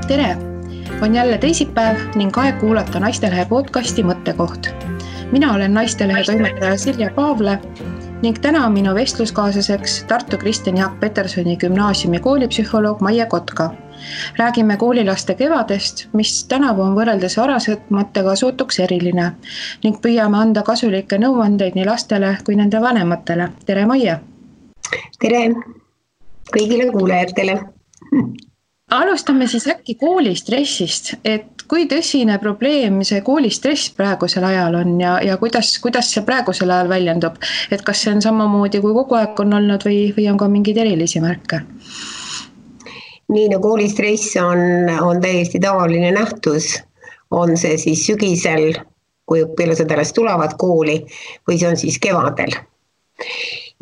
Tere! On jälle teisipäev ning aeg kuulata Naistelehe podcasti Mõttekoht. Mina olen Naistelehe toimetaja Silja Paavle ning täna on minu vestluskaaslaseks Tartu Kristjan Jaak Petersoni gümnaasiumi koolipsühholoog Maie Kotka. Räägime koolilaste kevadest, mis tänavu on võrreldes varasematega sootuks eriline ning püüame anda kasulikke nõuandeid nii lastele kui nende vanematele. Tere, Maie! Tere kõigile kuulajatele! Alustame siis äkki koolistressist, et kui tõsine probleem see koolistress praegusel ajal on ja kuidas see praegusel ajal väljendub? Et kas see on samamoodi kui kogu aeg on olnud või on ka mingeid erilisi märke? Nii, no koolistress on täiesti tavaline nähtus. On see siis sügisel, kui õpilased alles tulevad kooli, või see on siis kevadel.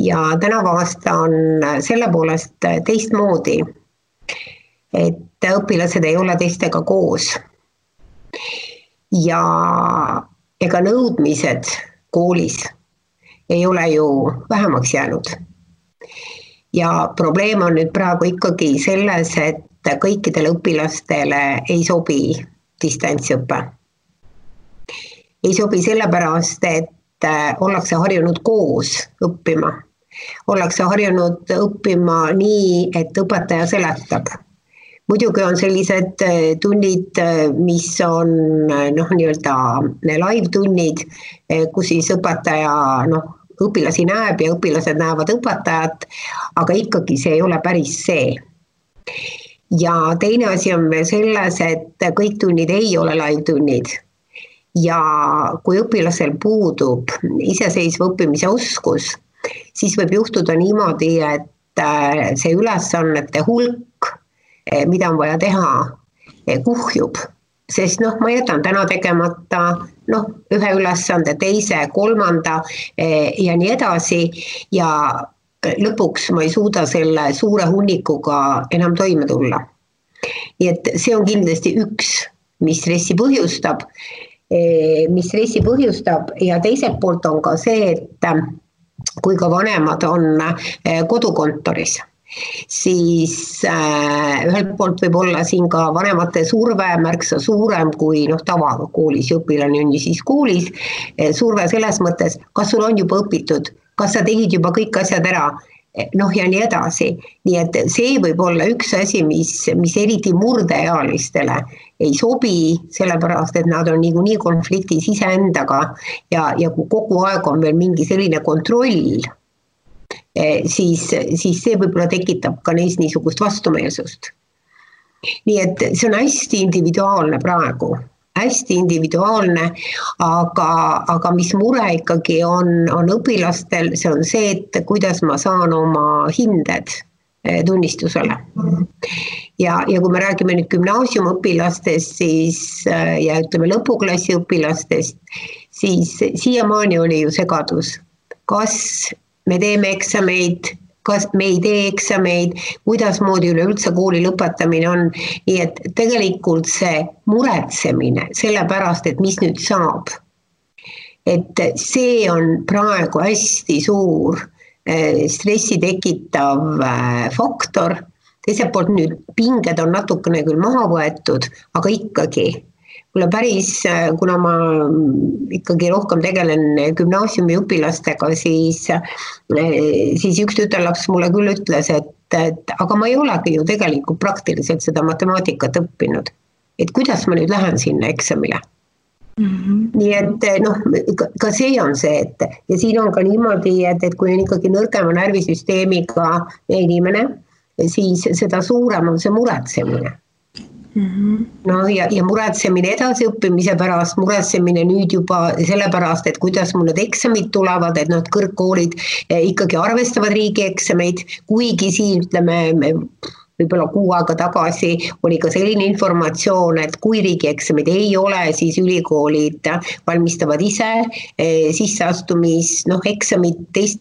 Ja tänavu aasta on selle poolest teistmoodi, et õpilased ei ole teistega koos. Ja ega nõudmised koolis ei ole ju vähemaks jäänud. Ja probleem on nüüd praegu ikkagi selles, et kõikidele õpilastele ei sobi distantsõpe. Ei sobi sellepärast, et ollakse harjunud koos õppima. Ollakse harjunud õppima nii, et õpetaja seletab. Muidugi on sellised tunnid, mis on nii-öelda live-tunnid, kus siis õpetaja õpilasi näeb ja õpilased näevad õpetajat, aga ikkagi see ei ole päris see. Ja teine asi on veel selles, et kõik tunnid ei ole live-tunnid. Ja kui õpilasel puudub iseseisva õppimise oskus, siis võib juhtuda niimoodi, et see ülesannete hulk, mida on vaja teha, kuhjub. Sest ma jätan täna tegemata ühe ülesande, teise, kolmanda ja nii edasi ja lõpuks ma ei suuda selle suure hunnikuga enam toime tulla. Nii et see on kindlasti üks, mis stressi põhjustab ja teiselt poolt on ka see, et kui ka vanemad on kodukontoris, siis ühelt poolt võib olla siin ka vanemate surve märksa suurem kui tavaga koolis, õpilane on ju siis koolis, surve selles mõttes, kas sul on juba õpitud, kas sa tegid juba kõik asjad ära, ja nii edasi. Nii et see võib olla üks asi, mis eriti murdeealistele ei sobi, sellepärast, et nad on niikuinii konfliktis iseendaga ja kui kogu aeg on veel mingi selline kontroll, siis see võib-olla tekitab ka neis niisugust vastumeelsust. Nii et see on hästi individuaalne praegu, hästi individuaalne, aga mis mure ikkagi on õpilastel, see on see, et kuidas ma saan oma hinded tunnistusele. Ja kui me räägime nüüd gümnaasiumõpilastest ja ütleme lõpuklassi õpilastest, siis siiamaani oli ju segadus, kas me teeme eksameid, kas me ei tee eksameid, kuidas moodi üleüldse kooli lõpetamine on. Nii et tegelikult see muretsemine sellepärast, et mis nüüd saab. Et see on praegu hästi suur stressi tekitav faktor. Teiselt poolt nüüd pinged on natukene küll maha võetud, aga ikkagi. Mulle päris, kuna ma ikkagi rohkem tegelen gümnaasiumi õpilastega, siis üks tütarlaps mulle küll ütles, et aga ma ei olegi ju tegelikult praktiliselt seda matemaatikat õppinud. Et kuidas ma nüüd lähen sinna eksamile? Nii et ka see on see, ja siin on ka niimoodi, et kui on ikkagi nõrgema närvisüsteemiga inimene, siis seda suurem on see muretsemine. Ja muretsemine edasiõppimise pärast, muretsemine nüüd juba sellepärast, et kuidas mul need eksamid tulevad, et kõrgkoolid ikkagi arvestavad riigieksameid, kuigi siin ütleme võib-olla 6 aega tagasi oli ka selline informatsioon, et kui riigieksamid ei ole, siis ülikoolid valmistavad ise sisseastumis, eksamid teist.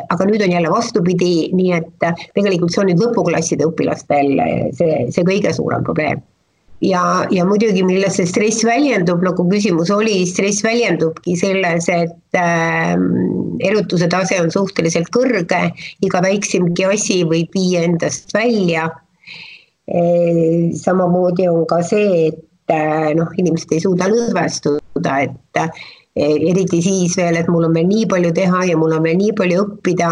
Aga nüüd on jälle vastupidi, nii et tegelikult see on nüüd lõpuklasside õpilastel see kõige suurem probleem. ja muidugi, milles see stress väljendub, nagu küsimus oli, stress väljendubki selles, et erutuse tase on suhteliselt kõrge, iga väiksemgi asi võib viia endast välja. Samamoodi on ka see, et inimesed ei suuda lõdvestuda, et eriti siis veel, et mul on veel nii palju teha ja mul on veel nii palju õppida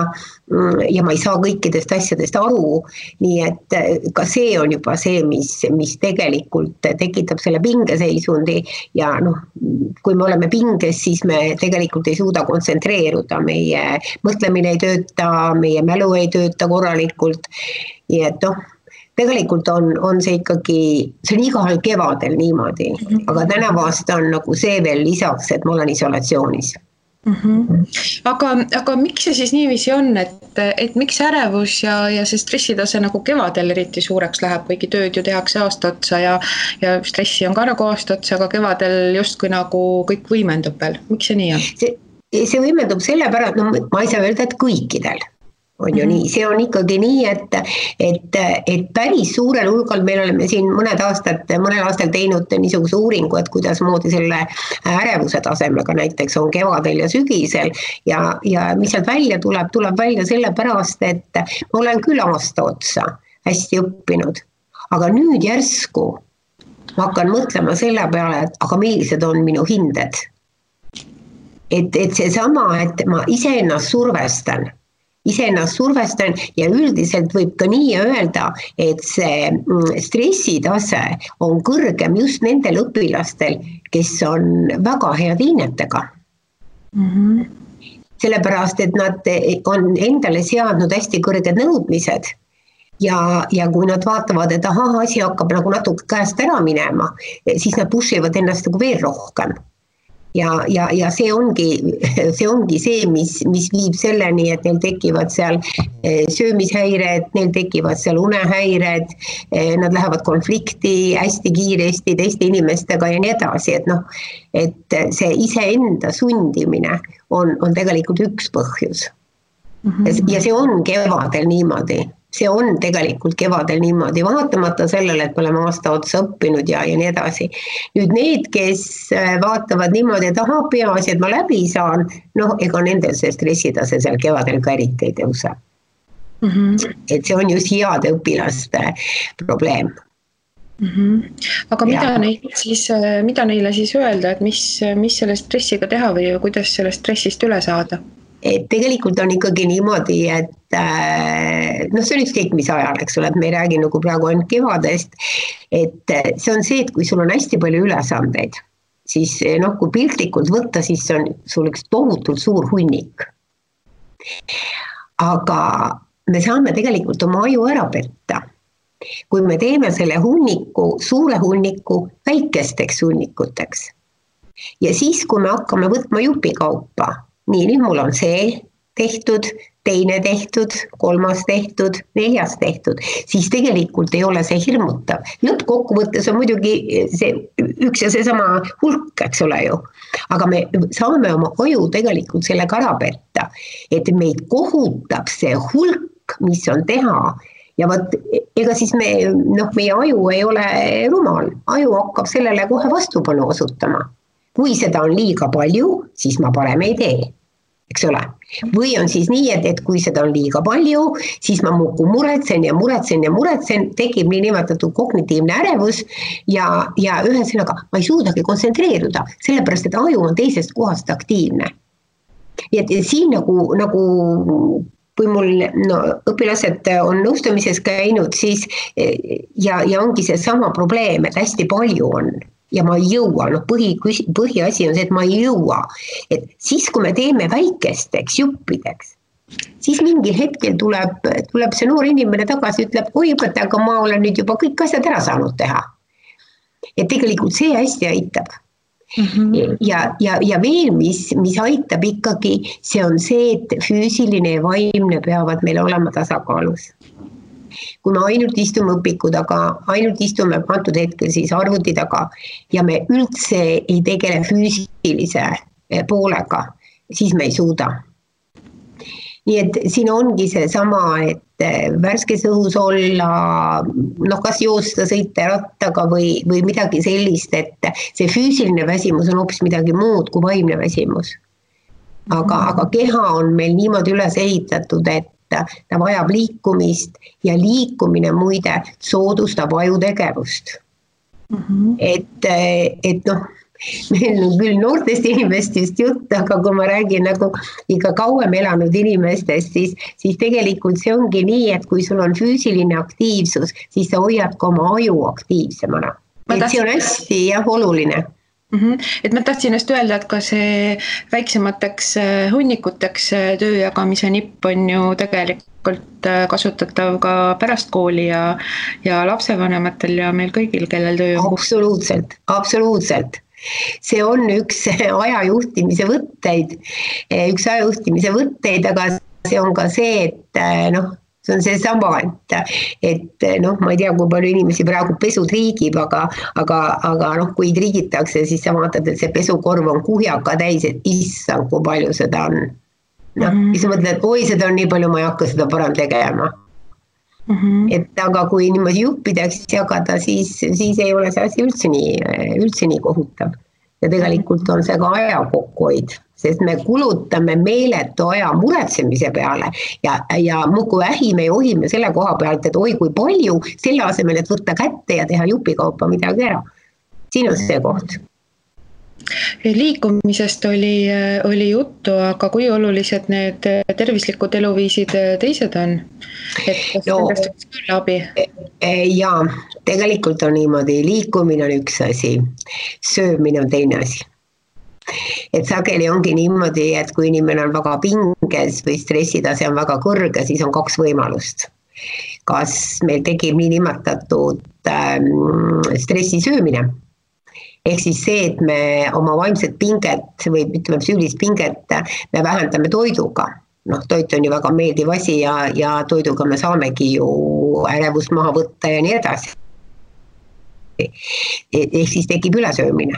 ja ma ei saa kõikidest asjadest aru, nii et ka see on juba see, mis tegelikult tekitab selle pingeseisundi ja kui me oleme pinges, siis me tegelikult ei suuda kontsentreeruda, meie mõtlemine ei tööta, meie mälu ei tööta korralikult, nii et tegelikult on see ikkagi, see on igahel kevadel niimoodi, aga tänavu aasta on nagu see veel lisaks, et ma olen isolatsioonis. Aga miks see siis niiviisi on, et miks ärevus ja see stressitase nagu kevadel eriti suureks läheb, kuigi tööd ju tehakse aasta otsa ja stressi on ka nagu aasta otsa, aga kevadel justkui nagu kõik võimendub veel. Miks see nii on? See võimendub selle pärast, ma ei saa öelda, et kõikidel. On ju nii, see on ikkagi nii, et päris suurel hulgal meil oleme siin mõnel aastal teinud niisuguse uuringu, et kuidas moodi selle ärevuse tasemega näiteks on kevadel ja sügisel ja mis sealt välja tuleb välja selle pärast, et ma olen küll aasta otsa hästi õppinud, aga nüüd järsku ma hakkan mõtlema selle peale, et aga millised on minu hinded. Et seesama, et ma iseennast survestan ja üldiselt võib ka nii öelda, et see stressitase on kõrgem just nendel õpilastel, kes on väga head hinnetega. Sellepärast, et nad on endale seadnud hästi kõrged nõudmised ja kui nad vaatavad, et asi hakkab nagu natuke käest ära minema, siis nad pushivad ennast nagu veel rohkem. Ja see ongi see, mis viib selleni, et neil tekivad seal söömishäired, neil tekivad seal unehäired, nad lähevad konflikti hästi kiiresti teiste inimestega ja nii edasi, et see iseenda sundimine on tegelikult üks põhjus. Ja see on kevadel niimoodi. See on tegelikult kevadel niimoodi, vaatamata sellele, et me oleme aasta otsa õppinud ja nii edasi. Nüüd need, kes vaatavad niimoodi, et peaasi, et ma läbi saan, ega nendel see stressitase seal kevadel ka eriti ei tõuse. Et see on just heade õpilaste probleem. Aga mida neile siis öelda, et mis selle stressiga teha või kuidas sellest stressist üle saada? Et tegelikult on ikkagi niimoodi, et see on ükskõik mis ajal, eks ole, et me ei räägi nagu praegu ainult kevadest, et see on see, et kui sul on hästi palju ülesandeid, siis kui piltlikult võtta, siis see on sul üks tohutult suur hunnik. Aga me saame tegelikult oma aju ära petta, kui me teeme selle suure hunniku väikesteks hunnikuteks. Ja siis, kui me hakkame võtma jupikaupa, nüüd mul on see tehtud, teine tehtud, kolmas tehtud, neljas tehtud, siis tegelikult ei ole see hirmutav. Lõppkokkuvõttes on muidugi see üks ja seesama hulk, eks ole ju. Aga me saame oma aju tegelikult sellega ära petta, et meid kohutab see hulk, mis on teha. Ja ega siis meie aju ei ole rumal, aju hakkab sellele kohe vastupanu osutama. Kui seda on liiga palju, siis ma parem ei tee. Eks ole? Või on siis nii, et kui seda on liiga palju, siis ma muudkui muretsen, tekib nii nimetatud kognitiivne ärevus ja ühesõnaga ma ei suudagi kontsentreeruda, sellepärast, et aju on teisest kohast aktiivne. Ja siin nagu kui mul õpilased on nõustamises käinud, siis ja ongi see sama probleem, et hästi palju on. Ja ma ei jõua, põhiasi on see, et ma ei jõua. Et siis, kui me teeme väikesteks juppideks, siis mingil hetkel tuleb see noor inimene tagasi, ütleb, oi õpetaja, aga ma olen nüüd juba kõik asjad ära saanud teha. Et tegelikult see hästi aitab. Ja veel, mis aitab ikkagi, see on see, et füüsiline ja vaimne peavad meil olema tasakaalus. Kui me ainult istume õpiku taga, ainult istume antud hetkel siis arvuti taga ja me üldse ei tegele füüsilise poolega, siis me ei suuda. Nii et siin ongi see sama, värskes õhus olla, noh, kas joosta, sõita rattaga või midagi sellist, et see füüsiline väsimus on hoopis midagi muud kui vaimne väsimus. Aga keha on meil niimoodi üles ehitatud, et ta vajab liikumist ja liikumine muide soodustab ajutegevust. Et noh, meil on küll noortest inimestest jutt, aga kui ma räägin nagu ikka kauem elanud inimestest, siis tegelikult see ongi nii, et kui sul on füüsiline aktiivsus, siis sa hoiad ka oma aju aktiivsemana. See on hästi oluline. Et ma tahtsin just öelda, et ka see väiksemateks hunnikuteks töö jagamise nipp on ju tegelikult kasutatav ka pärast kooli ja lapsevanematel ja meil kõigil, kellel töö on. Absoluutselt. See on üks ajajuhtimise võtteid, aga see on ka see, et noh, see on see sama, et noh, ma ei tea, kui palju inimesi praegu pesu triigib, aga noh, kui triigitakse, siis sa vaatad, et see pesukorv on kuhjaka täis, et issand, kui palju seda on. Noh, siis mõtled, et oi, seda on nii palju, ma ei hakka seda parem tegema. Et aga kui niimoodi juppideks jagada, siis ei ole see asi üldse nii kohutav. Ja tegelikult on see ka aja kokkuhoid, sest me kulutame meeletu aja muretsemise peale ja muidu ähime ja ohime selle koha pealt, et oi kui palju, selle asemel, et võtta kätte ja teha jupikaupa midagi ära. Siin on see koht. Liikumisest oli juttu, aga kui olulised need tervislikud eluviisid teised on? Et kas nendest võiks küll abi? Jaa, tegelikult on niimoodi, liikumine on üks asi, söömine on teine asi. Et sageli ongi niimoodi, et kui inimene on väga pinges või stressitase on väga kõrge, siis on kaks võimalust. Kas meil tekib nii nimetatud stressisöömine? Ehk siis see, et me oma vaimset pinget või ütleme psüühilist pinget me vähendame toiduga. Noh, toit on ju väga meeldiv asi ja toiduga me saamegi ju ärevust maha võtta ja nii edasi. Ehk siis tekib ülesöömine.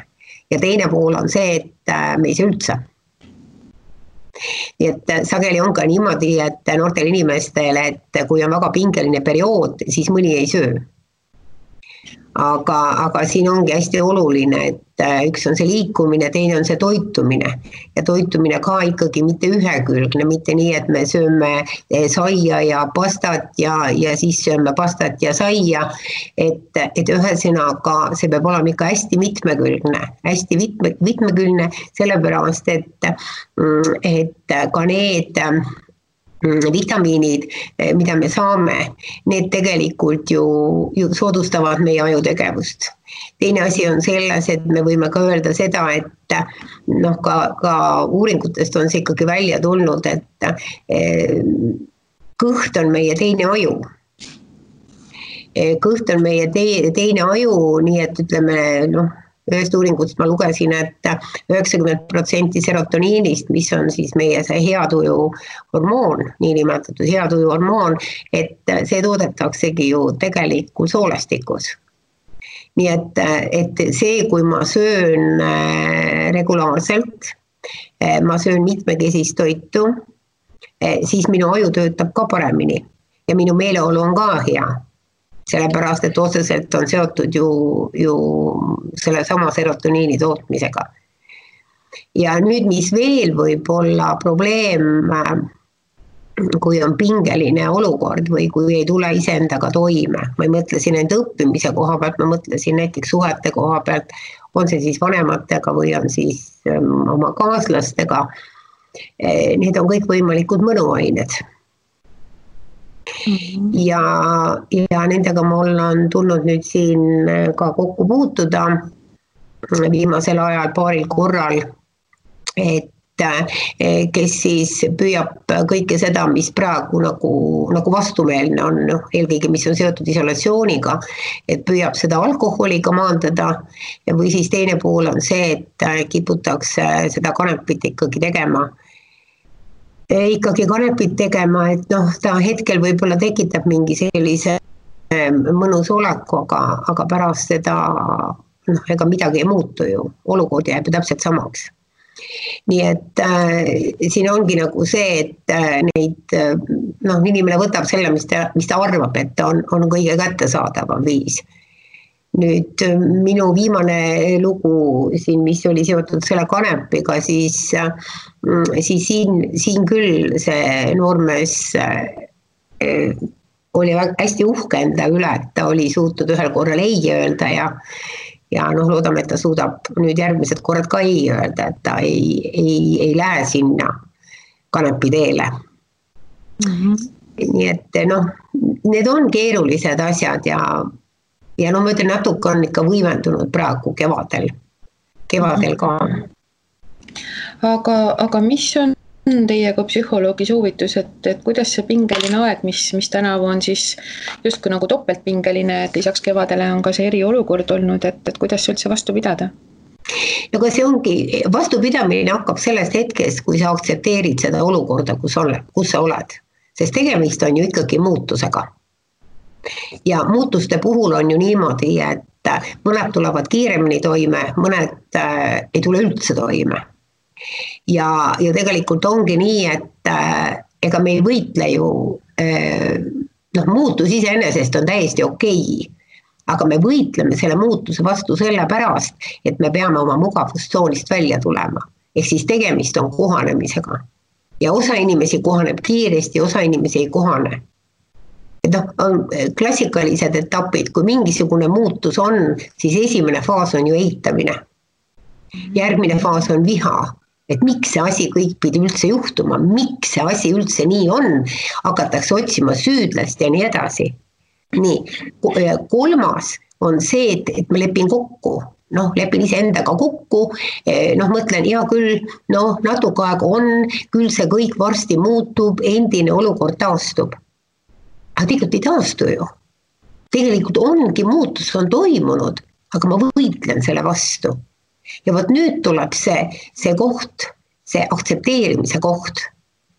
Ja teine pool on see, et me ei söö üldse. Nii et sageli on ka niimoodi, et noortel inimestel, et kui on väga pingeline periood, siis mõni ei söö. Aga siin ongi hästi oluline, et üks on see liikumine, teine on see toitumine. Ja toitumine ka ikkagi mitte ühekülgne, mitte nii, et me sööme saia ja pastat ja siis sööme pastat ja saia. Et ühesõnaga see peab olema ikka hästi mitmekülgne, sellepärast, et ka need vitamiinid, mida me saame, need tegelikult ju soodustavad meie ajutegevust. Teine asi on selles, et me võime ka öelda seda, et noh, ka uuringutest on see ikkagi välja tulnud, et kõht on meie teine aju. Kõht on meie teine aju, nii et ütleme, noh, ühest uuringust ma lugesin, et 90% serotoniinist, mis on siis meie see heatuju hormoon, niinimetatud heatuju hormoon, et see toodetaksegi ju tegelikult soolestikus. Nii et see, kui ma söön regulaarselt, ma söön mitmekesist toitu, siis minu aju töötab ka paremini ja minu meeleolu on ka hea. Sellepärast, et otseselt on seotud ju selle sama serotoniini tootmisega. Ja nüüd, mis veel võib olla probleem, kui on pingeline olukord või kui ei tule iseendaga toime. Ma ei mõtle siin enda õppimise koha pealt, ma mõtlesin näiteks suhete koha pealt, on see siis vanematega või on siis oma kaaslastega. Need on kõik võimalikud mõnuained. Ja nendega mul on tulnud nüüd siin ka kokku puutuda viimasel ajal paaril korral, et kes siis püüab kõike seda, mis praegu nagu vastumeelne on, eelkõige mis on seotud isolatsiooniga, et püüab seda alkoholiga maandada või siis teine pool on see, et kiputakse seda kanepit ikkagi tegema, et noh, ta hetkel võib-olla tekitab mingi sellise mõnus oleku, aga pärast seda ega midagi ei muutu ju, olukord jääb ju täpselt samaks. nii et siin ongi nagu see, et neid, inimene võtab selle, mis ta arvab, et on kõige kättesaadavam viis. Nüüd minu viimane lugu siin, mis oli seotud selle kanepiga, siis siin küll see noormees oli hästi uhke enda üle, et ta oli suutnud ühel korral ei öelda ja loodame, et ta suudab nüüd järgmised korrad ka ei öelda, et ta ei lähe sinna kanepi teele. Nii et need on keerulised asjad ja ma ütlen, natuke on ikka võimendunud praegu kevadel ka. Aga mis on teie kui psühholoogi soovitus, et kuidas see pingeline aeg, mis tänavu on siis justkui nagu topeltpingeline, et lisaks kevadele on ka see eriolukord olnud, et kuidas üldse vastu pidada? Aga see ongi, vastupidamine hakkab sellest hetkest, kui sa aktsepteerid seda olukorda, kus sa oled, sest tegemist on ju ikkagi muutusega. Ja muutuste puhul on ju niimoodi, et mõned tulevad kiiremini toime, mõned ei tule üldse toime. Ja tegelikult ongi nii, et ega me ei võitle ju, muutus iseenesest on täiesti okei, aga me võitleme selle muutuse vastu sellepärast, et me peame oma mugavustsoonist välja tulema. Ehk siis tegemist on kohanemisega. Ja osa inimesi kohaneb kiiresti, osa inimesi ei kohane. On klassikalised etapid, kui mingisugune muutus on, siis esimene faas on ju eitamine. Järgmine faas on viha, et miks see asi kõik pidi üldse juhtuma, miks see asi üldse nii on, hakatakse otsima süüdlast ja nii edasi. Nii, kolmas on see, et ma lepin kokku, lepin iseendaga kokku, mõtlen, hea küll, natuke aega on, küll see kõik varsti muutub, endine olukord taastub. Aga tegelikult ei taastu ju. Tegelikult ongi muutus on toimunud, aga ma võitlen selle vastu. Ja võt nüüd tuleb see koht, see aktsepteerimise koht,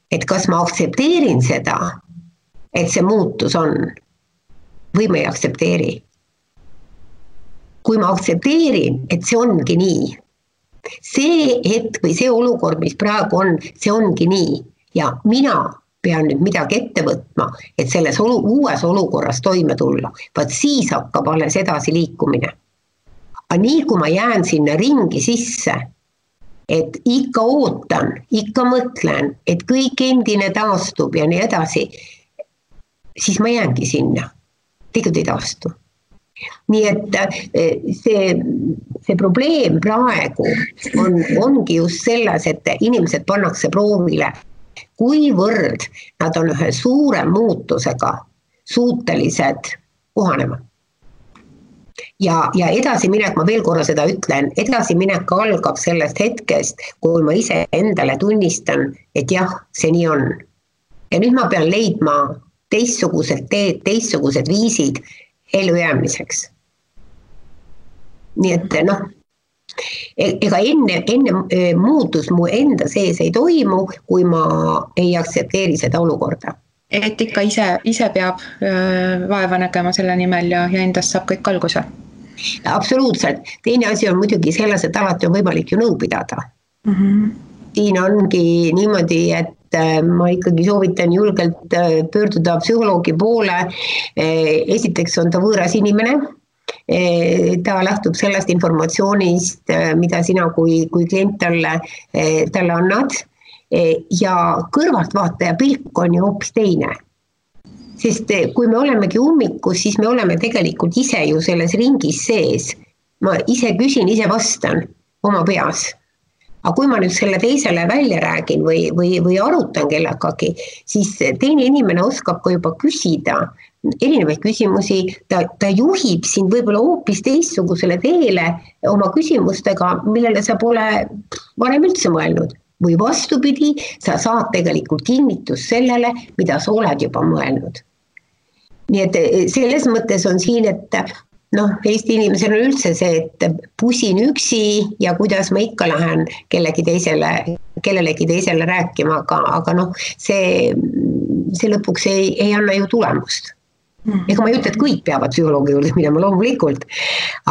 et kas ma aktsepteerin seda, et see muutus on, või ma ei aktsepteeri. Kui ma aktsepteerin, et see ongi nii, see hetk või see olukord, mis praegu on, see ongi nii ja mina pean nüüd midagi ette võtma, et selles uues olukorras toime tulla. Vaat siis hakkab alles edasi liikumine. Aga nii kui ma jään sinna ringi sisse, et ikka ootan, ikka mõtlen, et kõik endine taastub ja nii edasi, siis ma jäängi sinna. Tegelikult ei taastu. Nii et see probleem praegu ongi just selles, et inimesed pannakse proovile, kuivõrd nad on ühe suure muutusega suutelised kohanema. Ja edasiminek, ma veel korra seda ütlen, edasiminek algab sellest hetkest, kui ma ise endale tunnistan, et jah, see nii on. Ja nüüd ma pean leidma teistsugused teed, teistsugused viisid ellujäämiseks. Nii et ega enne muutus mu enda sees ei toimu, kui ma ei aktsepteeri seda olukorda. Et ikka ise peab vaeva nägema selle nimel ja endast saab kõik alguse? Absoluutselt. Teine asi on muidugi selles, et alati on võimalik ju nõu pidada. Siin ongi niimoodi, et ma ikkagi soovitan julgelt pöörduda psühholoogi poole. Esiteks on ta võõras inimene. Ta lähtub sellest informatsioonist, mida sina kui klient talle annad ja kõrvaltvaataja pilk on ju hoopis teine. Sest kui me olemegi ummikus, siis me oleme tegelikult ise ju selles ringis sees. Ma ise küsin, ise vastan oma peas. Aga kui ma nüüd selle teisele välja räägin või arutan kellegagi, siis teine inimene oskab ka juba küsida erinevaid küsimusi, ta juhib sind võib-olla hoopis teistsugusele teele oma küsimustega, millele sa pole varem üldse mõelnud. Või vastupidi, sa saad tegelikult kinnitust sellele, mida sa oled juba mõelnud. Nii et selles mõttes on siin, et Eesti inimesel on üldse see, et pusin üksi ja kuidas ma ikka lähen kellelegi teisele rääkima, aga see lõpuks ei anna ju tulemust. Ega ma ei ütle, et kõik peavad psühholoogi juurde minema loomulikult,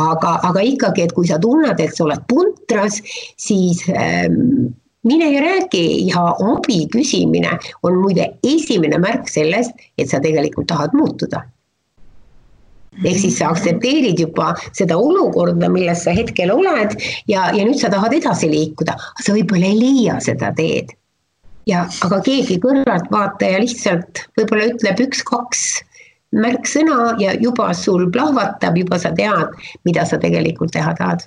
aga ikkagi, et kui sa tunned, et sa oled puntras, siis mine ja räägi ja abi küsimine on muide esimene märk sellest, et sa tegelikult tahad muutuda. Ehk siis sa aktsepteerid juba seda olukorda, milles sa hetkel oled ja nüüd sa tahad edasi liikuda, sa võib-olla ei leia seda teed. Aga keegi kõrvalt vaataja lihtsalt võib-olla ütleb 1-2 märksõna ja juba sul plahvatab, juba sa tead, mida sa tegelikult teha tahad.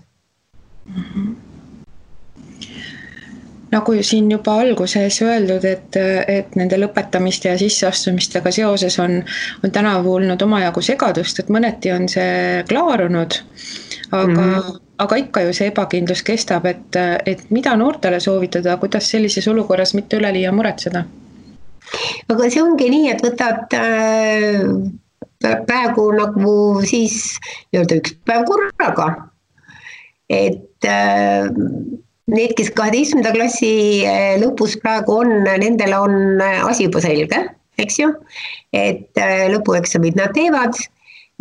Nagu siin juba alguses öeldud, et nende lõpetamiste ja sisseastumistega seoses on tänavu olnud omajagu segadust, et mõneti on see klaarunud, aga ikka ju see ebakindlus kestab, et mida noortele soovitada, kuidas sellises olukorras mitte üleliia muretseda? Aga see ongi nii, et võtad praegu nagu siis öelda 1 päev korraga, et need, kes 12. klassi lõpus praegu on, nendel on asi juba selge, eks ju, et lõpueksamid nad teevad,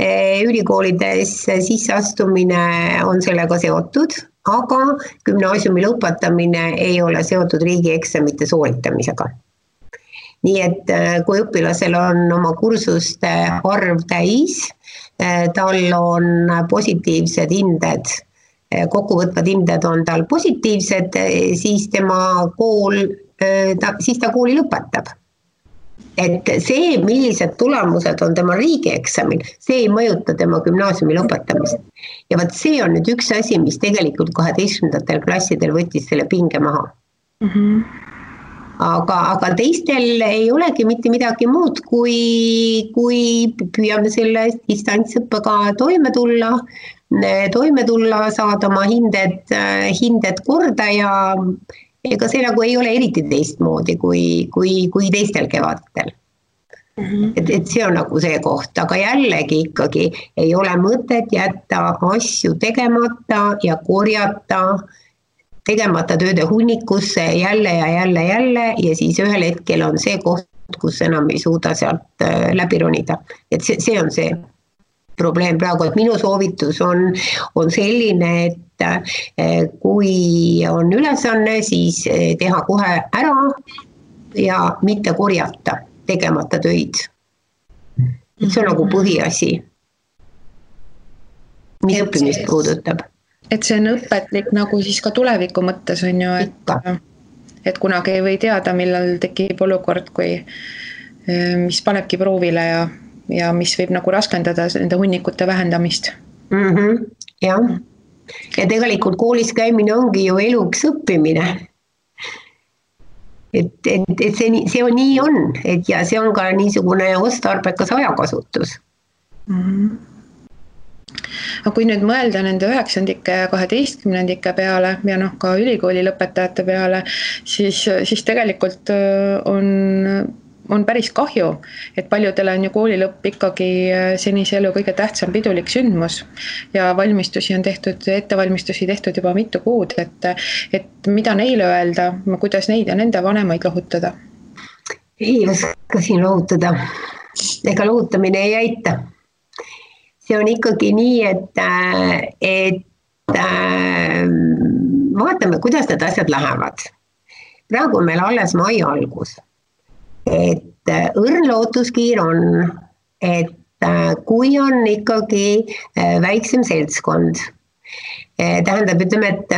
ülikoolides sisseastumine on sellega seotud, aga gümnaasiumi lõpetamine ei ole seotud riigieksamite sooritamisega. Nii et kui õpilasel on oma kursuste arv täis, tal on positiivsed hinded, kokkuvõtvad hinded on tal positiivsed, siis tema siis ta kooli lõpetab. Et see, millised tulemused on tema riigieksamil, see ei mõjuta tema gümnaasiumi lõpetamist. Ja vaat see on nüüd üks asi, mis tegelikult 12. klassidel võttis selle pinge maha. Aga teistel ei olegi mitte midagi muud, kui püüame selle distantsõppega toime tulla, saada oma hinded korda ja ega see nagu ei ole eriti teistmoodi kui teistel kevadel. Et see on nagu see koht, aga jällegi ikkagi ei ole mõtet jätta asju tegemata ja korjata tegemata tööde hunnikusse jälle ja siis ühel hetkel on see koht, kus enam ei suuda sealt läbi ronida. Et see on see probleem praegu, et minu soovitus on selline, et kui on ülesanne, siis teha kohe ära ja mitte korjata tegemata töid. See on nagu põhiasi, mis õppimist puudutab. Et see on õpetlik nagu siis ka tuleviku mõttes on ju, et kunagi ei või teada, millal tekib olukord, mis panebki proovile ja mis võib nagu raskendada nende hunnikute vähendamist. Jah, ja tegelikult koolis käimine ongi ju eluks õppimine. Et see on nii on, ja see on ka niisugune otstarbekas ajakasutus. Aga kui nüüd mõelda nende 9-ndike ja 12-ndike peale ja ka ülikooli lõpetajate peale, siis tegelikult on päris kahju, et paljudele on ju koolilõpp ikkagi senise elu kõige tähtsam pidulik sündmus ja ettevalmistusi tehtud juba mitu kuud, et mida neile öelda, kuidas neid ja nende vanemaid lohutada? Ei oska siin lohutada, ega lohutamine ei aita. See on ikkagi nii, et vaatame, kuidas need asjad lähevad. Praegu on meil alles mai algus. Et õrn lootuskiir on, et kui on ikkagi väiksem seltskond, tähendab, ütleme, et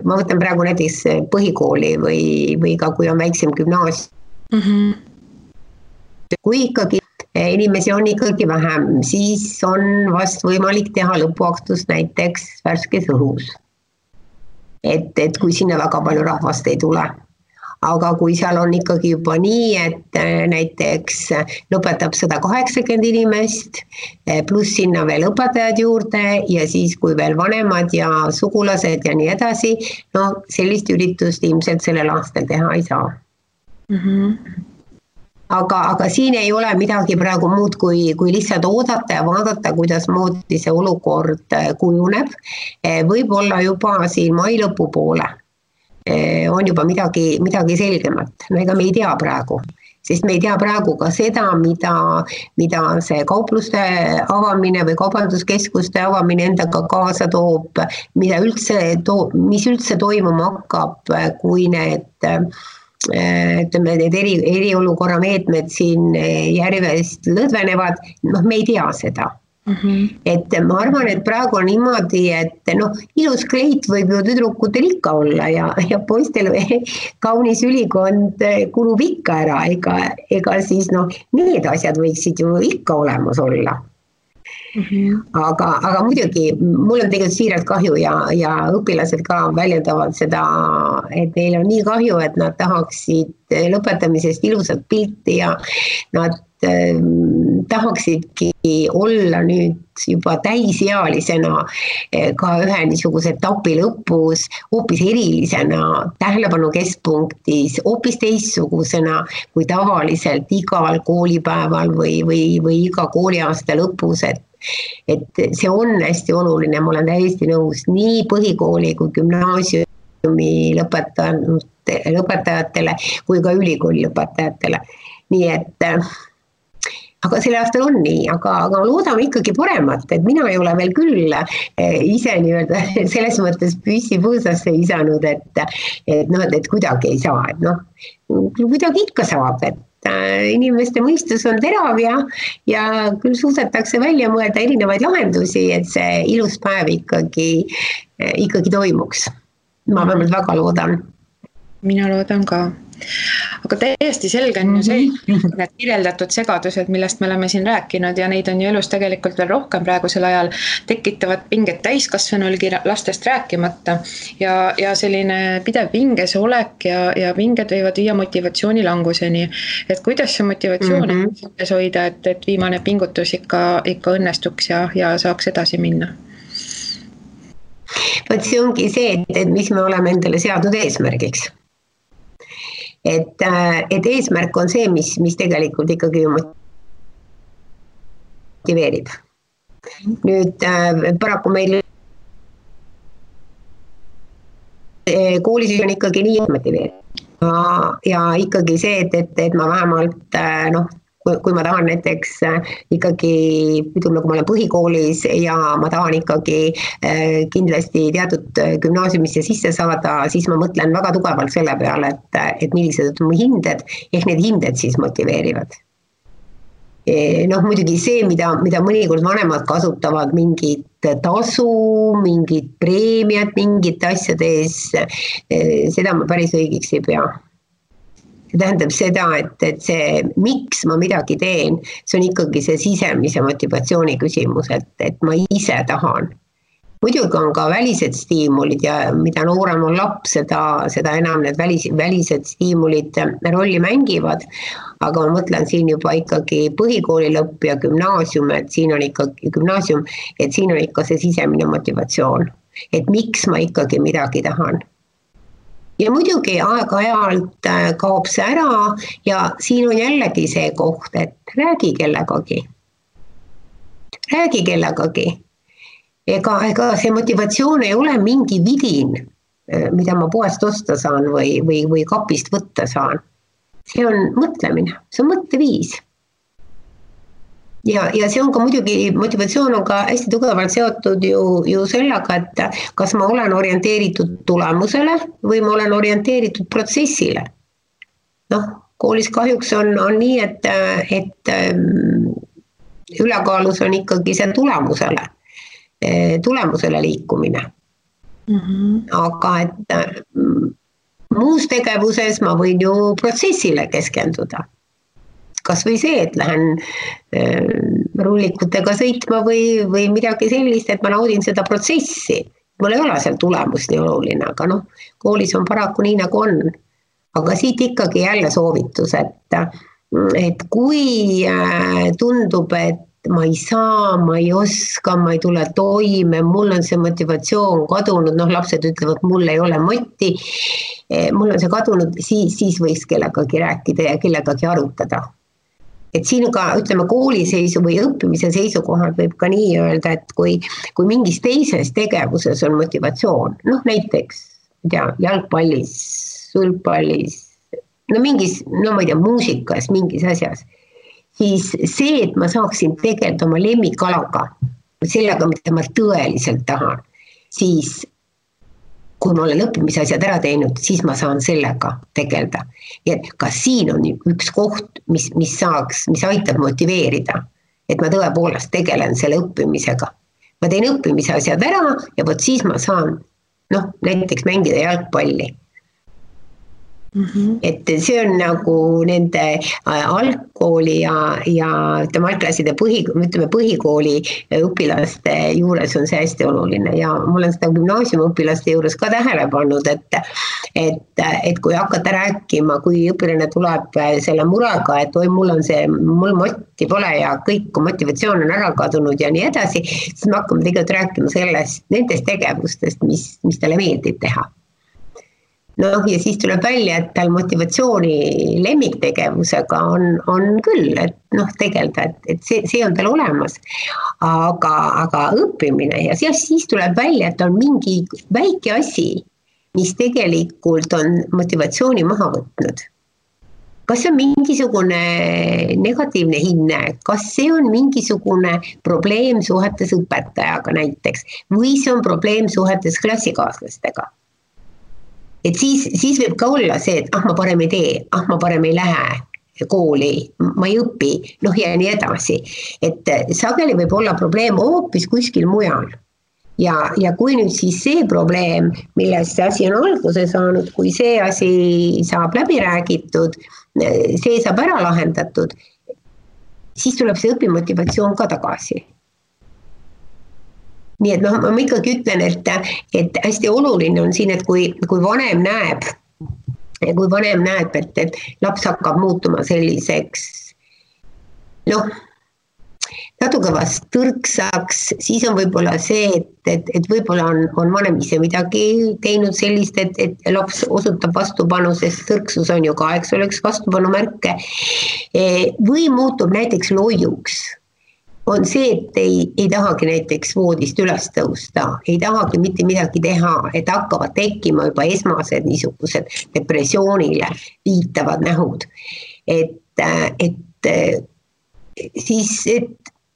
ma võtan praegu näiteks põhikooli või ka kui on väiksem gümnaasium. Kui ikkagi inimesi on ikkagi vähem, siis on vast võimalik teha lõpuaktust näiteks värskes õhus. Et kui sinna väga palju rahvast ei tule. Aga kui seal on ikkagi juba nii, et näiteks lõpetab 180 inimest, pluss sinna veel õpetajad juurde ja siis kui veel vanemad ja sugulased ja nii edasi, no sellist üritust ilmselt sellel aastal teha ei saa. Aga siin ei ole midagi praegu muud, kui lihtsalt oodata ja vaadata, kuidas moodi see olukord kujuneb. Võib-olla juba siin mai lõpu poole on juba midagi selgemat. No ega me ei tea praegu. sest me ei tea praegu ka seda, mida see kaupluste avamine või kaubanduskeskuste avamine endaga kaasa toob, mis üldse toimuma hakkab, kui need need eriolukorra meetmed siin järjest lõdvenevad, me ei tea seda. Et ma arvan, et praegu on niimoodi, et ilus kleit võib ju tüdrukutel ikka olla ja poistel kaunis ülikond kulub ikka ära, ega siis need asjad võiksid ju ikka olemas olla. Aga muidugi, mul on tegelikult siiralt kahju ja õpilased ka väljendavad seda, et neil on nii kahju, et nad tahaksid lõpetamisest ilusat pilti ja nad tahaksidki olla nüüd juba täisealisena ka ühe niisuguse etapi lõpus, hoopis erilisena, tähelepanu keskpunktis, hoopis teistsugusena kui tavaliselt igal koolipäeval või iga kooliaasta lõpus, et see on hästi oluline, ma olen täiesti nõus nii põhikooli kui gümnaasiumi lõpetajatele kui ka ülikooli lõpetajatele. Nii et aga selle aastal on nii, aga loodame ikkagi paremat, et mina ei ole veel küll ise nii-öelda selles mõttes püssi põõsasse visanud, et kuidagi ei saa, kuidagi ikka saab, et inimeste mõistus on terav ja küll suudetakse välja mõelda erinevaid lahendusi, et see ilus päev ikkagi toimuks. Ma vähemalt väga loodan. Mina loodan ka. Aga täiesti selge on ju see, need kirjeldatud segadused, millest me oleme siin rääkinud ja neid on ju elus tegelikult veel rohkem praegusel ajal, tekitavad pinget täiskasvanulgi lastest rääkimata ja selline pidev pinges olek ja pinged võivad viia motivatsiooni languseni. Et kuidas see motivatsioon hoida, et viimane pingutus ikka õnnestuks ja saaks edasi minna? Võt see ongi see, et mis me oleme endale seadnud eesmärgiks. Et eesmärk on see, mis tegelikult ikkagi motiveerib. Nüüd paraku meil koolis on ikkagi nii motiveerib. Ja ikkagi see, et ma vähemalt, kui ma tahan näiteks ikkagi, kui ma olen põhikoolis ja ma tahan ikkagi kindlasti teatud gümnaasiumisse sisse saada, siis ma mõtlen väga tugevalt selle peale, et millised on mu hinded, ehk need hinded siis motiveerivad. Muidugi see, mida mõnikord vanemad kasutavad, mingit tasu, mingit preemiat, mingit asjade ees, seda ma päris õigeks ei pea. See tähendab seda, et see, miks ma midagi teen, see on ikkagi see sisemise motivatsiooni küsimus, et ma ise tahan. Muidugi on ka välised stiimulid ja mida noorem on laps, seda enam need välised stiimulid rolli mängivad, aga ma mõtlen siin juba ikkagi põhikooli lõpp ja gümnaasium, et siin on ikka see sisemine motivatsioon, et miks ma ikkagi midagi tahan. Ja muidugi aeg-ajalt kaob see ära ja siin on jällegi see koht, et räägi kellegagi. Ega see motivatsioon ei ole mingi vidin, mida ma poest osta saan või kapist võtta saan. See on mõtlemine, see on mõtteviis. Ja see on ka muidugi, motivatsioon on ka hästi tugevalt seotud ju sellega, et kas ma olen orienteeritud tulemusele või ma olen orienteeritud protsessile. Koolis kahjuks on nii, et ülekaalus on ikkagi see tulemusele liikumine. Aga et muus tegevuses ma võin ju protsessile keskenduda. Kas või see, et lähen rullikutega sõitma või midagi sellist, et ma naudin seda protsessi. Mul ei ole seal tulemus nii oluline, aga koolis on paraku nii nagu on. Aga siit ikkagi jälle soovitus, et kui tundub, et ma ei saa, ma ei oska, ma ei tule toime, mul on see motivatsioon kadunud, lapsed ütlevad, mul ei ole moti, mul on see kadunud, siis võiks kellegagi rääkida ja kellegagi arutada. Et siin ka, ütleme, kooliseisu või õppimise seisukohad võib ka nii öelda, et kui mingis teises tegevuses on motivatsioon, näiteks jalgpallis, sulgpallis, no mingis, no ma ei tea, muusikas, mingis asjas, siis see, et ma saaksin tegeleda oma lemmikalaga, sellega, mida ma tõeliselt tahan, siis kui ma olen õppimise asjad ära teinud, siis ma saan sellega tegeleda. Ja ka siin on üks koht, mis aitab motiveerida, et ma tõepoolest tegelen selle õppimisega. Ma teen õppimise asjad ära ja võt siis ma saan näiteks mängida jalgpalli. Et see on nagu nende algkooli ja algklasside põhikooli õpilaste juures on see hästi oluline ja ma olen seda gümnaasiumi õpilaste juures ka tähele pannud, et kui hakata rääkima, kui õpilane tuleb selle murega, et oi, mul motti pole ja kõik motivatsioon on ära kadunud ja nii edasi, siis me hakkame tegelikult rääkima nendest tegevustest, mis talle meeldib teha. Ja siis tuleb välja, et tal motivatsiooni lemmiktegevusega on küll, et tegelda, et see on tal olemas, aga õppimine ja siis tuleb välja, et on mingi väike asi, mis tegelikult on motivatsiooni maha võtnud. Kas see on mingisugune negatiivne hinne, kas see on mingisugune probleem suhetes õpetajaga näiteks või see on probleem suhetes klassikaaslastega? Et siis võib ka olla see, et ma parem ei tee, ma parem ei lähe kooli, ma ei õpi, ja nii edasi. Et sageli võib olla probleem hoopis kuskil mujal. Ja kui nüüd siis see probleem, millest see asi on alguse saanud, kui see asi saab läbi räägitud, see saab ära lahendatud, siis tuleb see õpimotivatsioon ka tagasi. Nii et ma ikkagi ütlen, et hästi oluline on siin, et kui vanem näeb, et laps hakkab muutuma selliseks, natuke vast tõrksaks, siis on võib-olla see, et võib-olla on vanem ise midagi teinud sellist, et laps osutab vastupanu, sest tõrksus on ju ka, eks oleks vastupanu märke, või muutub näiteks loiuks. On see, et ei tahagi näiteks voodist üles tõusta, ei tahagi mitte midagi teha, et hakkavad tekkima juba esmased niisugused depressioonile viitavad nähud. Et siis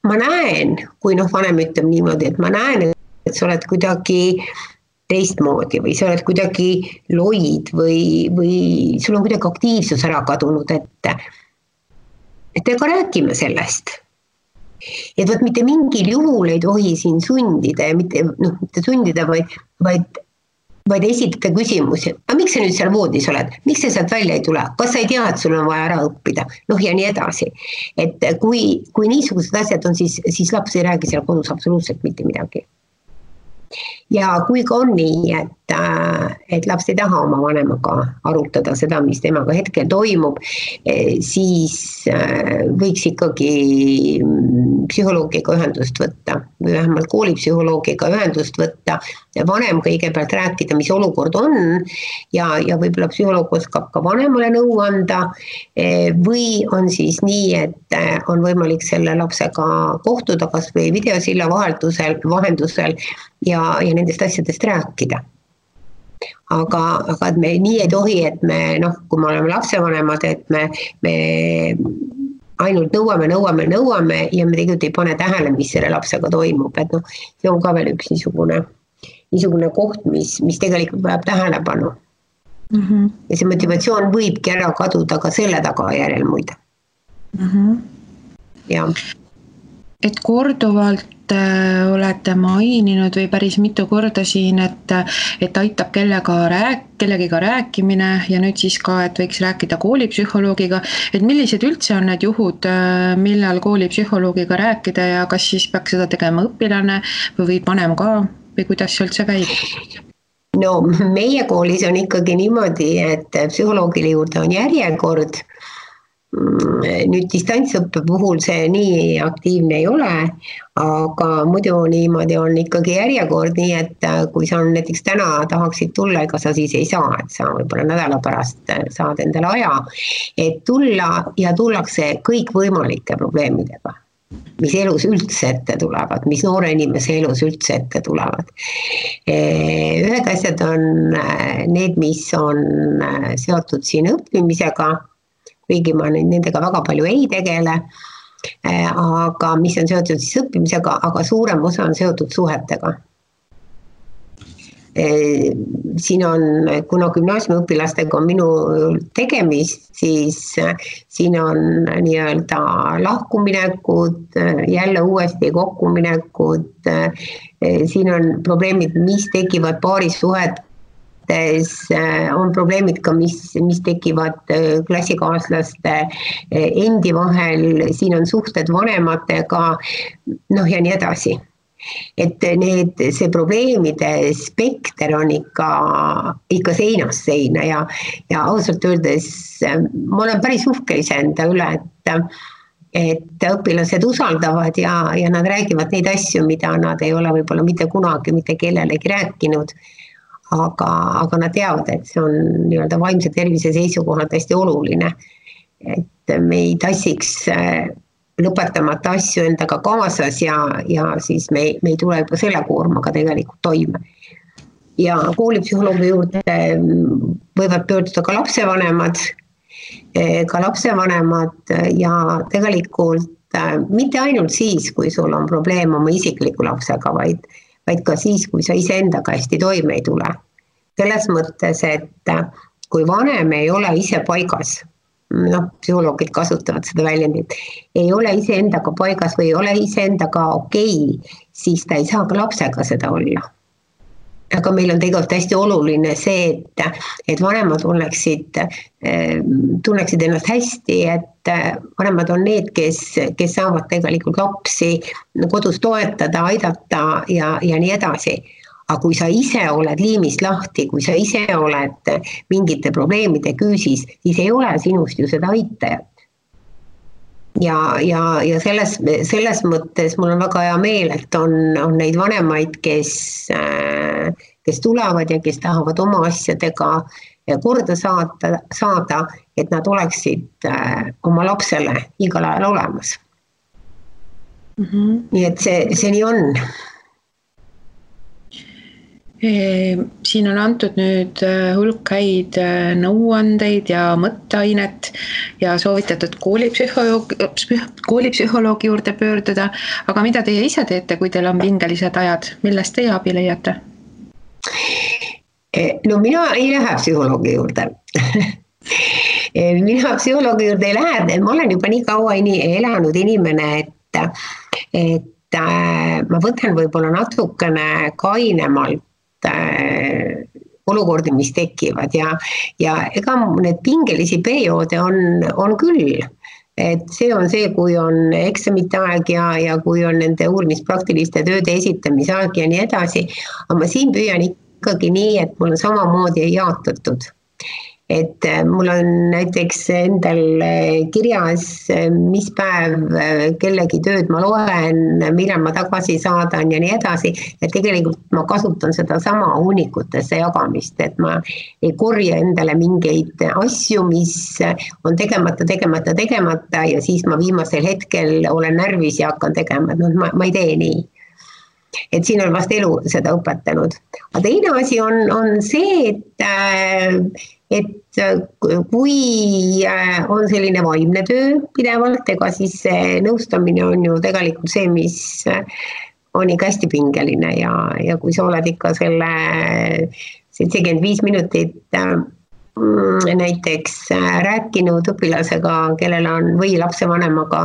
ma näen, kui vanem ütleb niimoodi, et ma näen, et sa oled kuidagi teistmoodi või sa oled kuidagi loid või sul on kuidagi aktiivsus ära kadunud, et ega räägime sellest. Et võt mitte mingil juhul ei tohi siin sundida ja mitte sundida, vaid esitada küsimusi. Aga miks sa nüüd seal voodis oled? Miks sa sealt välja ei tule? Kas sa ei tea, et sul on vaja ära õppida? Ja nii edasi. Et kui niisugused asjad on, siis laps ei räägi seal kodus absoluutselt mitte midagi. Ja kui ka on nii, et laps ei taha oma vanemaga arutada seda, mis temaga hetkel toimub, siis võiks ikkagi psühholoogiga ühendust võtta või vähemalt koolipsühholoogiga ühendust võtta ja vanem kõigepealt rääkida, mis olukord on ja võib-olla psühholoog oskab ka vanemale nõu anda või on siis nii, et on võimalik selle lapsega kohtuda kas või videosilla vahendusel ja nendest asjadest rääkida. Aga et me nii ei tohi, et me, kui me oleme lapsevanemad, et me ainult nõuame ja me tegelikult ei pane tähele, mis selle lapsega toimub. Et see on ka veel üks niisugune koht, mis tegelikult vajab tähelepanu. Ja see motivatsioon võibki ära kaduda ka selle tagajärjel muide. Ja. Et korduvalt olete maininud või päris mitu korda siin, et aitab kellegiga rääkimine ja nüüd siis ka, et võiks rääkida koolipsühholoogiga, et millised üldse on need juhud, millal koolipsühholoogiga rääkida ja kas siis peaks seda tegema õpilane või vanem ka või kuidas see üldse käib? No meie koolis on ikkagi niimoodi, et psühholoogile juurde on järjekord. Nüüd distantsõppe puhul see nii aktiivne ei ole, aga muidu niimoodi on ikkagi järjekord, nii et kui sa näiteks täna tahaksid tulla, ega sa siis ei saa, et sa võib-olla nädala pärast saad endale aja, et tulla ja tullakse kõik võimalike probleemidega. mis elus üldse ette tulevad, mis noore inimese elus üldse ette tulevad. Ühed asjad on need, mis on seotud siin õppimisega, kuigi ma nendega väga palju ei tegele, aga mis on seotud siis õppimisega, aga suurem osa on seotud suhetega. Siin on, kuna gümnaasiumiõpilastega on minu tegemist, siis siin on nii-öelda lahkuminekud, jälle uuesti kokkuminekud, siin on probleemid, mis tekivad paarisuhetes, on probleemid ka, mis tekivad klassikaaslaste endi vahel, siin on suhted vanematega, ja nii edasi. Et see probleemide spekter on ikka seinast seina ja ausalt öeldes ma olen päris uhke iseenda üle, et õpilased usaldavad ja nad räägivad neid asju, mida nad ei ole võib-olla mitte kunagi mitte kellelegi rääkinud, aga nad teavad, et see on nii-öelda vaimse tervise seisukohalt hästi oluline, et me ei tassiks lõpetamata asju endaga kaasas ja siis me ei tule juba selle koormaga tegelikult toime. Ja koolipsühholoogi juurde võivad pöörduda ka lapsevanemad ja tegelikult mitte ainult siis, kui sul on probleem oma isikliku lapsega, vaid ka siis, kui sa iseendaga hästi toime ei tule. Selles mõttes, et kui vanem ei ole ise paigas, psühholoogid kasutavad seda väljendit, ei ole iseendaga paigas või ei ole iseendaga okei, siis ta ei saa ka lapsega seda olla. Aga meil on tegelikult hästi oluline see, et vanemad tunneksid ennast hästi, et vanemad on need, kes saavad tegelikult lapsi kodus toetada, aidata ja nii edasi. Aga kui sa ise oled liimist lahti, kui sa ise oled mingite probleemide küüsis, siis ei ole sinust ju seda aitajat. Ja selles mõttes mul on väga hea meel, et on neid vanemaid, kes tulevad ja kes tahavad oma asjadega korda saada, et nad oleksid oma lapsele igal ajal olemas. Nii et see nii on. Siin on antud nüüd hulk häid nõuandeid ja mõtteainet ja soovitatud koolipsühholoogi juurde pöörduda, aga mida teie ise teete, kui teil on pingelised ajad, millest teie abi leiate? No mina ei lähe psühholoogi juurde. Mina psühholoogi juurde ei lähe, ma olen juba nii kaua elanud inimene, et ma võtan võib-olla natukene kainemalt olukordi, mis tekivad ja ega need pingelisi perioode on küll, et see on see, kui on eksamite aeg ja kui on nende uurimispraktiliste tööde esitamise aeg ja nii edasi, aga ma siin püüan ikkagi nii, et mul on samamoodi jaotatud. Et mul on näiteks endal kirjas, mis päev kellegi tööd ma loen, millal ma tagasi saadan ja nii edasi, et tegelikult ma kasutan seda sama hunnikutesse jagamist, et ma ei korja endale mingeid asju, mis on tegemata ja siis ma viimasel hetkel olen närvis ja hakkan tegema, ma ei tee nii. Et siin on vast elu seda õpetanud. Aga teine asi on see, et kui on selline vaimne töö pidevalt, ega siis see nõustamine on ju tegelikult see, mis on ikka hästi pingeline ja kui sa oled ikka selle 75 minutit näiteks rääkinud õpilasega, kellel on või lapsevanemaga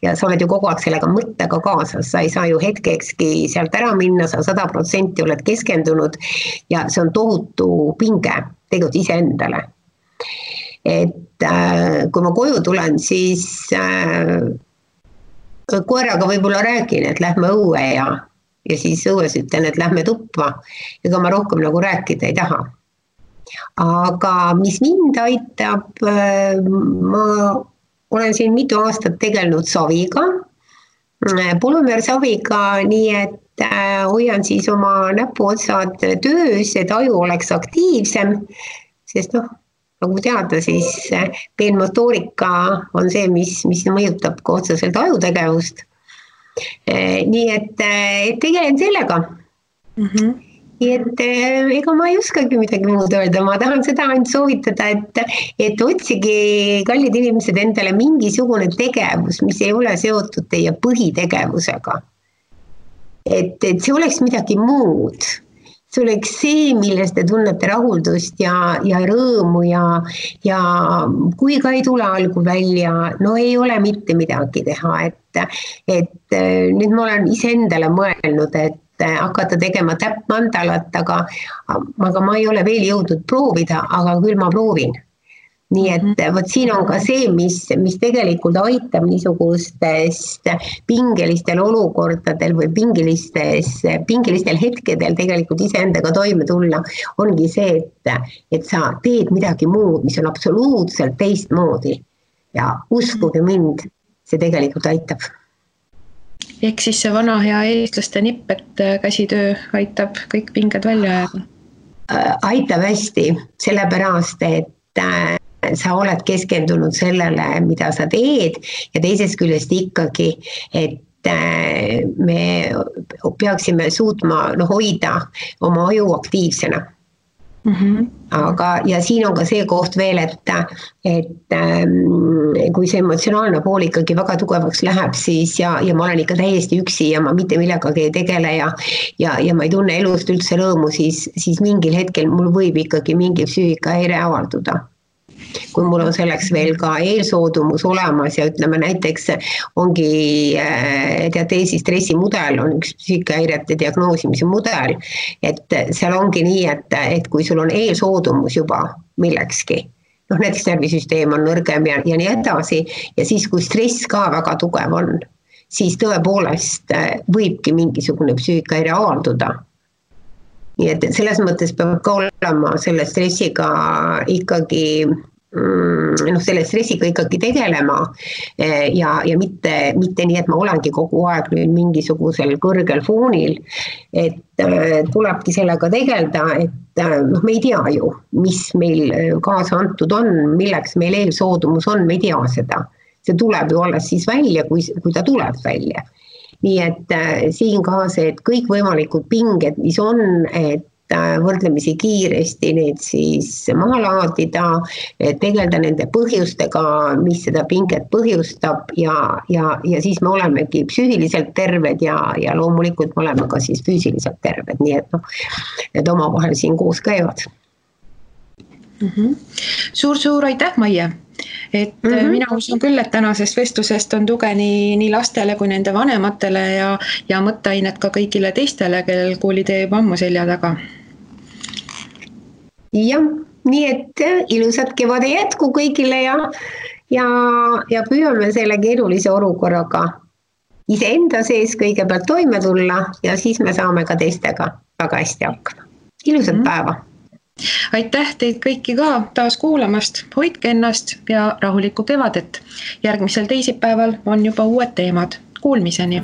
ja sa oled ju kogu aeg sellega mõttega kaasas, sa ei saa ju hetkekski sealt ära minna, sa 100% oled keskendunud ja see on tohutu pinge tegelikult iseendale. Et kui ma koju tulen, siis koeraga võib-olla räägin, et lähme õue ja siis õues ütlen, et lähme tuppa, ega ma rohkem nagu rääkida ei taha. Aga mis mind aitab, ma olen siin mitu aastat tegelenud saviga, polümeersaviga, nii et hoian siis oma näpuotsad töös, et aju oleks aktiivsem, sest nagu teada, siis peenmotoorika on see, mis mõjutab ka otseselt ajutegevust. Nii et tegelen sellega. Nii et ega ma ei oskagi midagi muud öelda, ma tahan seda ainult soovitada, et otsige, kallid inimesed, endale mingisugune tegevus, mis ei ole seotud teie põhitegevusega. Et see oleks midagi muud. See oleks see, milles te tunnete rahuldust ja rõõmu ja kui ka ei tule algul välja, no ei ole mitte midagi teha, et nüüd ma olen iseendale mõelnud, et hakata tegema täppmandalat, aga ma ei ole veel jõudnud proovida, aga küll ma proovin. Nii et võt siin on ka see, mis tegelikult aitab niisugustest pingelistel olukordadel või pingelistel hetkedel tegelikult iseendaga toime tulla, ongi see, et sa teed midagi muud, mis on absoluutselt teistmoodi ja uskuge mind, see tegelikult aitab. Ehk siis see vana hea eestlaste nipp, et käsitöö aitab kõik pinged välja ajada? Aitab hästi, sellepärast, et sa oled keskendunud sellele, mida sa teed ja teisest küljest ikkagi, et me peaksime suutma hoida oma aju aktiivsena. Aga, ja siin on ka see koht veel, et kui see emotsionaalne pool ikkagi väga tugevaks läheb, siis ja ma olen ikka täiesti üksi ja ma mitte millegagi ei tegele ja ma ei tunne elust üldse rõõmu, siis mingil hetkel mul võib ikkagi mingi psüühikahäire avalduda. Kui mul on selleks veel ka eelsoodumus olemas ja ütleme näiteks ongi diateesi stressimudel on üks psüühikahäirete diagnoosimise mudel, et seal ongi nii, et kui sul on eelsoodumus juba millekski, näiteks närvisüsteem on nõrgem ja nii edasi ja siis kui stress ka väga tugev on, siis tõepoolest võibki mingisugune psüühikahäire avalduda. Nii et selles mõttes peab ka olema selle stressiga ikkagi selle stressiga ikkagi tegelema ja mitte nii, et ma olengi kogu aeg nüüd mingisugusel kõrgel foonil, et tulebki sellega tegelda, et me ei tea ju, mis meil kaasa antud on, milleks meil eelsoodumus on, me ei tea seda. See tuleb ju alles siis välja, kui ta tuleb välja. Nii et siin ka see, et kõik võimalikud pinged, mis on, et võrdlemisi kiiresti need siis maha laadida, tegelda nende põhjustega, mis seda pinget põhjustab ja siis me olemegi psüühiliselt terved ja loomulikult me oleme ka siis füüsiliselt terved, nii et need omavahel siin koos käivad. Suur aitäh, Maie! Et mina usun küll, et tänasest vestlusest on tuge nii lastele kui nende vanematele ja mõtteainet ka kõigile teistele, kellel koolitee juba ammu selja taga. Jah, nii et ilusat kevade jätku kõigile ja püüame selle keerulise olukorraga iseenda sees kõigepealt toime tulla ja siis me saame ka teistega väga hästi hakkama. Ilusat päeva! Aitäh teid kõiki ka taas kuulamast, hoidke ennast ja rahulikku kevadet. Järgmisel teisipäeval on juba uued teemad. Kuulmiseni!